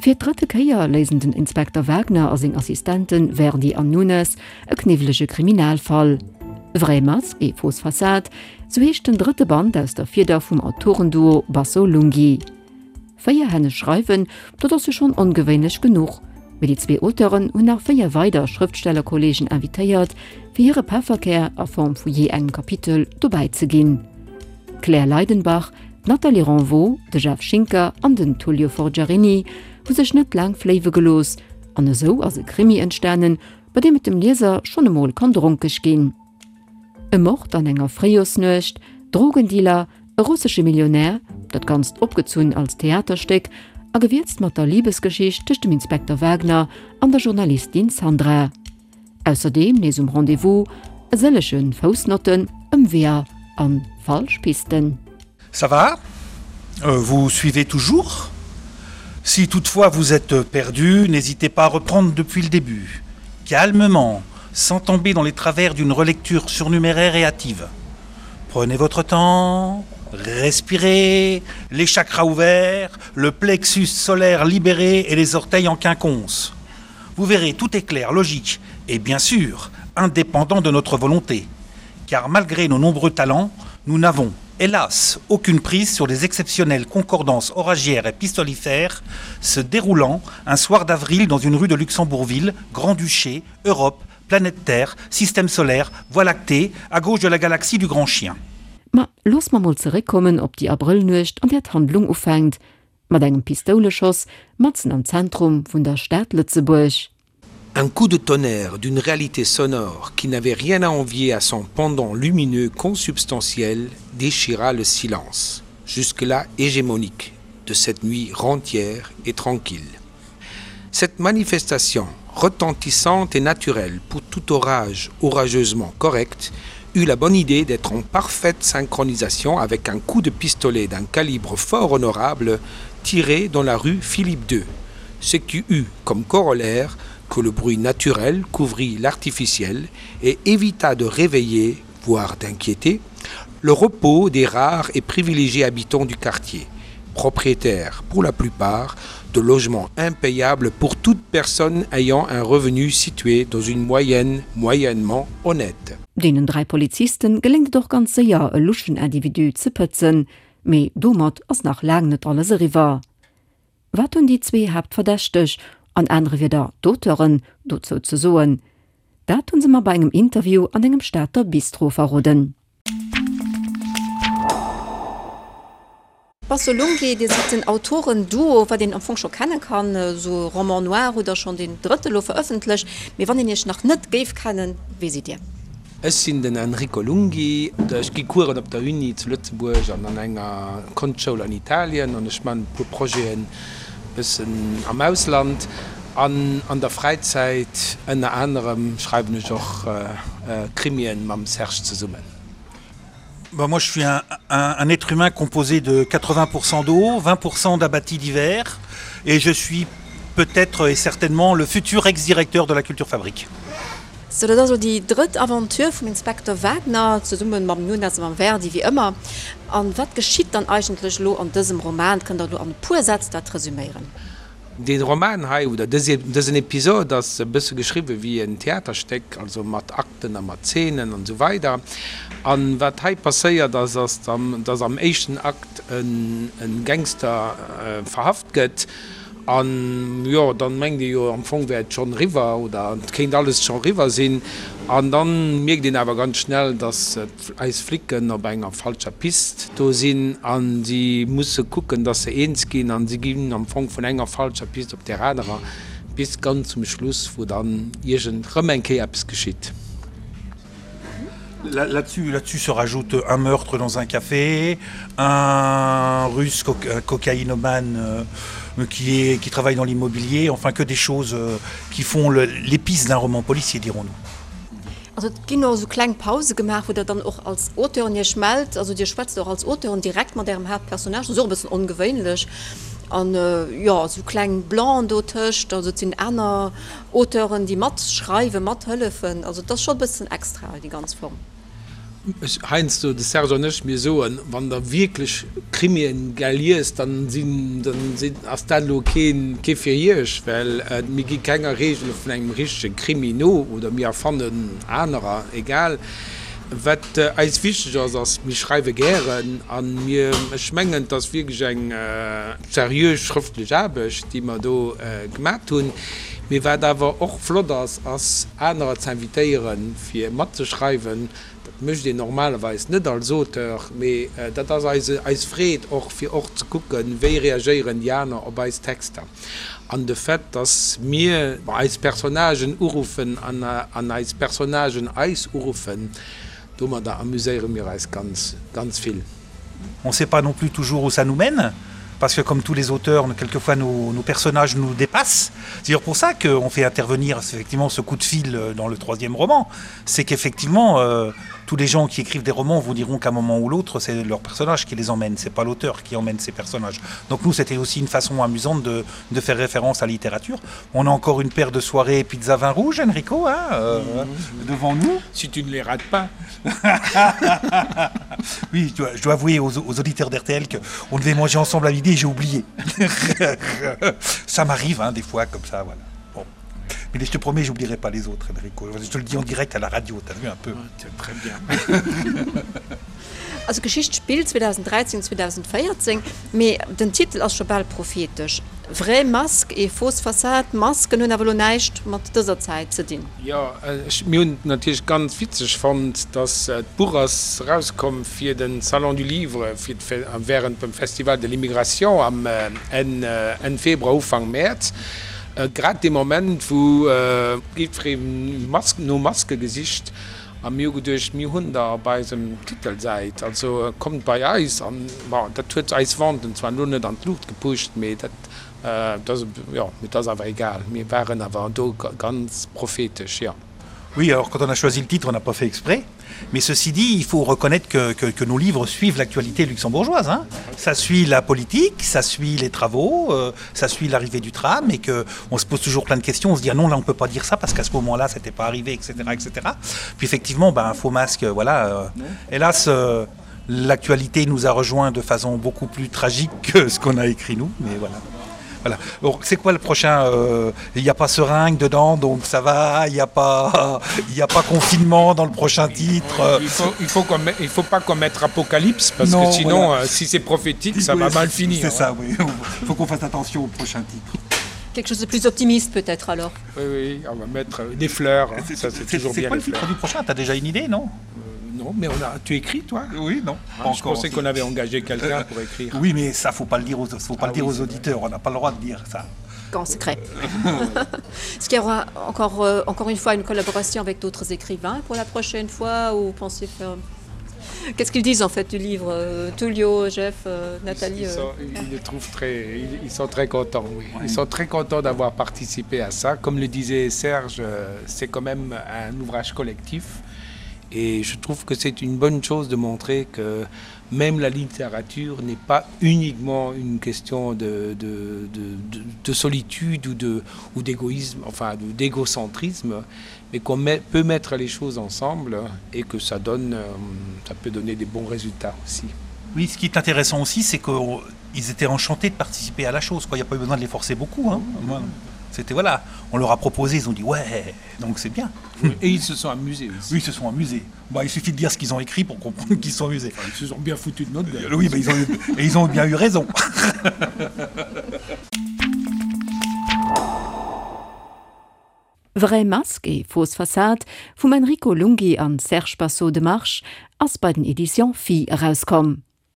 Fir d'drëtte Kéier léisen den Inspekter Wagner a seng Assistente Verdi an Nunes e kniwwelege Kriminalfall. Vraie masque et fausse façade, sou heescht den drëtte Band aus der Fieder vum Autorenduo Basso-Lunghi. Véierhänneg schreiwen, dat ass jo schonn ongewéinlech genuch, mee déi zwee Auteuren hunn nach véier weider Schrëftstellerkolleegen invitéiert, fir hire Pefferkär a Form vu jee engem Kapitel dobäi ze ginn. D'Claire Leidenbach, d'Nathalie Renvaux, de Jeff Schinker an den Tullio Forgiarini hu sech net laang fléiwe gelooss an esou ass e Krimi entstanen, bei deem et dem Lieser schonn emol kann dronkeg ginn. E Mord an enger Fréijorsnuecht, Drogendealer, e russesche Millionär, dat Ganzt opgezunn als Theaterstéck a gewierzt mat der Libesgeschicht tëscht dem Inspekter Wagner an der Journalistin Sandra. Ausserdeem nees um Rendez-vous e sëllege Foussnotten, Ëmweeër a falsch Pisten. Ça va? Vous suivez toujours? Si toutefois vous êtes perdu, n'hésitez pas à reprendre depuis le début, calmement, sans tomber dans les travers d'une relecture surnuméraire et hâtive. Prenez votre temps, respirez, les chakras ouverts, le plexus solaire libéré et les orteils en quinconce. Vous verrez, tout est clair, logique et bien sûr, indépendant de notre volonté. Car malgré nos nombreux talents, nous n'avons, hélas, aucune prise sur les exceptionnelles concordances oragières et pistolifères se déroulant un soir d'avril dans une rue de Luxembourgville, Grand-Duché, Europe, planète Terre, système solaire, Voie lactée, à gauche de la galaxie du Grand Chien. Ma looss mer mol zeréckkommen op déi Abrëllnuecht, an där d'Handlung ufänkt. Mat engem Pistouleschoss matzen am Zentrum vun der Stad Lëtzebuerg. Un coup de tonnerre d'une réalité sonore qui n'avait rien à envier à son pendant lumineux consubstantiel déchira le silence, jusque-là hégémonique, de cette nuit rentière et tranquille. Cette manifestation, retentissante et naturelle pour tout orage orageusement correct, eut la bonne idée d'être en parfaite synchronisation avec un coup de pistolet d'un calibre fort honorable tiré dans la rue Philippe II, ce qui eut comme corollaire que le bruit naturel couvrit l'artificiel et évita de réveiller, voire d'inquiéter, le repos des rares et privilégiés habitants du quartier, propriétaires pour la plupart de logements impayables pour toute personne ayant un revenu situé dans une moyenne moyennement honnête. Deenen 3 Polizisten geléngt et och ganz séier e luschen Individu ze pëtzen, mee domat ass nach laang net alles eriwwer. Wat hunn déi zwee Haaptverdächteg, an anere Wieder d'Auteuren, dozou ze soen? Dat hunn se mer bei engem Interview an engem Stater Bistro verroden. Basso Lunghi, Dir sidd den Autoren-Duo, wat een am Fong scho kenne kann. Esou Roman noir hutt Der schonn deen drëtte lo verëffentlecht. Mee wann een Iech nach net géif kennen, wie sidd Dir? Ech sinn den Enrico Lunghi. Ech gi Coursen op der Uni zu Lëtzebuerg an an enger Konschtschoul an Italien an ech man e puer Projeten e bëssen am Ausland. An an der Fräizäit ënner anerem schreiwen ech och Krimien mam Serge zesummen. Bah moi je suis un, un, un être humain composé de 80% d'eau, 20% d'abattis divers et je suis peut-être et certainement le futur ex-directeur de la Culture Fabrique. Sou, dat ass elo déi drëtt Aventure vum Inspektor Wagner, zesumme mam Nunes a mam Verdi wéi ëmmer. An wat geschitt dann eigentlech elo an dësem Roman? Kënnt Der elo an e puer Sätz dat resüméieren? Dee Roman hei, oder dësen Episod ass e bësse geschriwwe wéi en Theaterstéck, also mat Akten a mat Zeenen an esou weider. A wat hei passéiert ass, ass, datt am éischten Akt e Gangster verhaft gëtt. An jo, dann mengt ee jo am Fong wär et schonn eriwwer oder et kéint alles scho eriwwer sinn. An dann mierkt een awer ganz schnell, dass eis Flicken op enger falscher Pist do sinn a si musse kucken, dass se eens ginn. An si ginn am Fong vun enger falscher Pist op där anerer bis ganz zum Schluss, wou dann iergend rëm eng Kéier eppes geschitt. Là-dessus là-dessus se rajoute un meurtre dans un café, un russe co cocaïnomane euh, qui, est, qui travaille dans l'immobilier, enfin que des choses euh, qui font l'épice d'un roman policier, dirons-nous. Also et ginn och esou kleng Pause gemaach, wou Der dann och als Auteuren Iech mellt. Also Dir schwätzt och als Auteuren direkt mat Ärem Haaptpersonnage, dat ass och e bëssen ongewéinlech. An jo, esou kleng Blancs dotëscht, also et sinn aner Auteuren, déi matschreiwen, mathëllefen. Also et ass scho e bëssen extra, déi ganz Form. Ech, heiansdo, de Serge an ech, mir soen, wann Der wierklech Krimien gär liest, dann sinn, dann sinn, ass dat elo keen, kee fir Iech, well mir gi kenger Regele vun engem richtege Krimi no oder mir erfannen anerer, egal. Wat eis wichteg ass, ass, mir schreiwe gären a mir, ech mengen, et ass wierklech eng seriö schrëftlech Aarbecht, déi mer do gemat hunn. Mee wat awer och flott ass, ass anerer ze invitéieren, fir matzeschreiwen. Dat mécht een normalerweis net als Auteur, mee dat ass eis eis Freed och, fir och ze kucken, wéi reagéieren déi aner op eis Texter. An de Fait, dass mir eis Personnagen uruffen an eis Personnagen eis uruffen, domadder amuséiere mir eis ganz, ganz vill. On sait pas non plus toujours où ça nous mène parce que comme tous les auteurs quelquefois nos, nos personnages nous dépassent c'est d'ailleurs pour ça qu'on fait intervenir effectivement ce coup de fil euh, dans le troisième roman c'est qu'effectivement euh, tous les gens qui écrivent des romans vous diront qu'à un moment ou l'autre c'est leur personnage qui les emmène c'est pas l'auteur qui emmène ces personnages donc nous c'était aussi une façon amusante de, de faire référence à littérature on a encore une paire de soirées pizza vin rouge Enrico hein, euh, mmh. devant nous si tu ne les rates pas oui je dois, je dois avouer aux, aux auditeurs d'RTL que on devait manger ensemble à midi et j'ai oublié ça m'arrive hein, des fois comme ça voilà bon. mais je te promets j'oublierai pas les autres Enrico je te le dis en direct à la radio tu as vu un peu ouais, très bien Also d'Geschicht spillt 2013, 2014, mee den Titel ass scho bal prophetesch, Vrai masque et fausse façade. D'Masken hunn awer elo näischt mat dëser Zäit ze dinn. Jo, ech, mir hunn et natierlech ganz witzeg fonnt, dass d'Buch ass erauskomm fir de Salon du Livre, fir während dem Festival de l'immigration am Enn, Enn Februar, Ufank Mäerz, grad dee Moment, wou jiddweree Masken, no Maske gesicht A mir hu geduecht, mir hunn der op eisem Titelsäit, also kommt bei eis. An, bon, dat huet eis Venten zwar elo net an d'Luucht gepusht, mee dat, dat ass, jo, mee dat ass awer egal. Mir waren awer do ganz prophetesch, jo. Oui, alors quand on a choisi le titre, on n'a pas fait exprès. Mais ceci dit, il faut reconnaître que, que, que nos livres suivent l'actualité luxembourgeoise. Hein. Ça suit la politique, ça suit les travaux, euh, ça suit l'arrivée du tram et que on se pose toujours plein de questions, on se dit ah non là on peut pas dire ça parce qu'à ce moment-là c'était pas arrivé, etc., etc. Puis effectivement, ben, un faux masque, voilà. Euh, hélas, euh, l'actualité nous a rejoint de façon beaucoup plus tragique que ce qu'on a écrit nous, mais voilà. Voilà. C'est quoi le prochain euh, Il n'y a pas seringue dedans, donc ça va, il n'y a, pas, il a pas confinement dans le prochain titre. Il faut, il faut, met, il faut pas qu'on mette apocalypse, parce non, que sinon, voilà. euh, si c'est prophétique, ça oui, va mal finir. C'est ça, oui. Il faut qu'on fasse attention au prochain titre. Quelque chose de plus optimiste peut-être alors. Oui, oui, on va mettre euh, des fleurs. Hein. C'est toujours bien. Quoi le titre du prochain Tu as déjà une idée, non euh, Non, mais on a... tu écris toi Oui, non. Ah, pas je encore. pensais qu'on avait engagé quelqu'un pour écrire. Oui, mais ça faut pas le dire aux, faut pas ah, le dire oui, aux auditeurs. On n'a pas le droit de dire ça. En secret. Est-ce qu'il y aura encore, euh, encore une fois une collaboration avec d'autres écrivains pour la prochaine fois ou pensez faire Qu'est-ce qu'ils disent en fait du livre euh, Tullio, Jeff, euh, Nathalie Ils, ils, sont, euh... ils, le trouvent très, ils, ils sont très contents, oui. Ouais. Ils sont très contents d'avoir participé à ça. Comme le disait Serge, euh, c'est quand même un ouvrage collectif. Et je trouve que c'est une bonne chose de montrer que même la littérature n'est pas uniquement une question de, de, de, de, de solitude ou de, ou d'égoïsme, enfin d'égocentrisme, mais qu'on peut mettre les choses ensemble et que ça donne euh, ça peut donner des bons résultats aussi. Oui, ce qui est intéressant aussi, c'est qu'ils étaient enchantés de participer à la chose. Quoi. Il n'y a pas eu besoin de les forcer beaucoup. Hein. C'était voilà, on leur a proposé, ils ont dit ouais, donc c'est bien. Et ils se sont amusés aussi. Oui, ils se sont amusés. Bah, il suffit de dire ce qu'ils ont écrit pour comprendre qu'ils sont amusés. Enfin, ils se sont bien foutus de notre gueule. Oui, bah, ils ont eu, et ils ont bien eu raison. Vraie masque et fausse façade vum Enrico Lunghi an Serge Basso de March ass bei den Editions Phi erauskomm.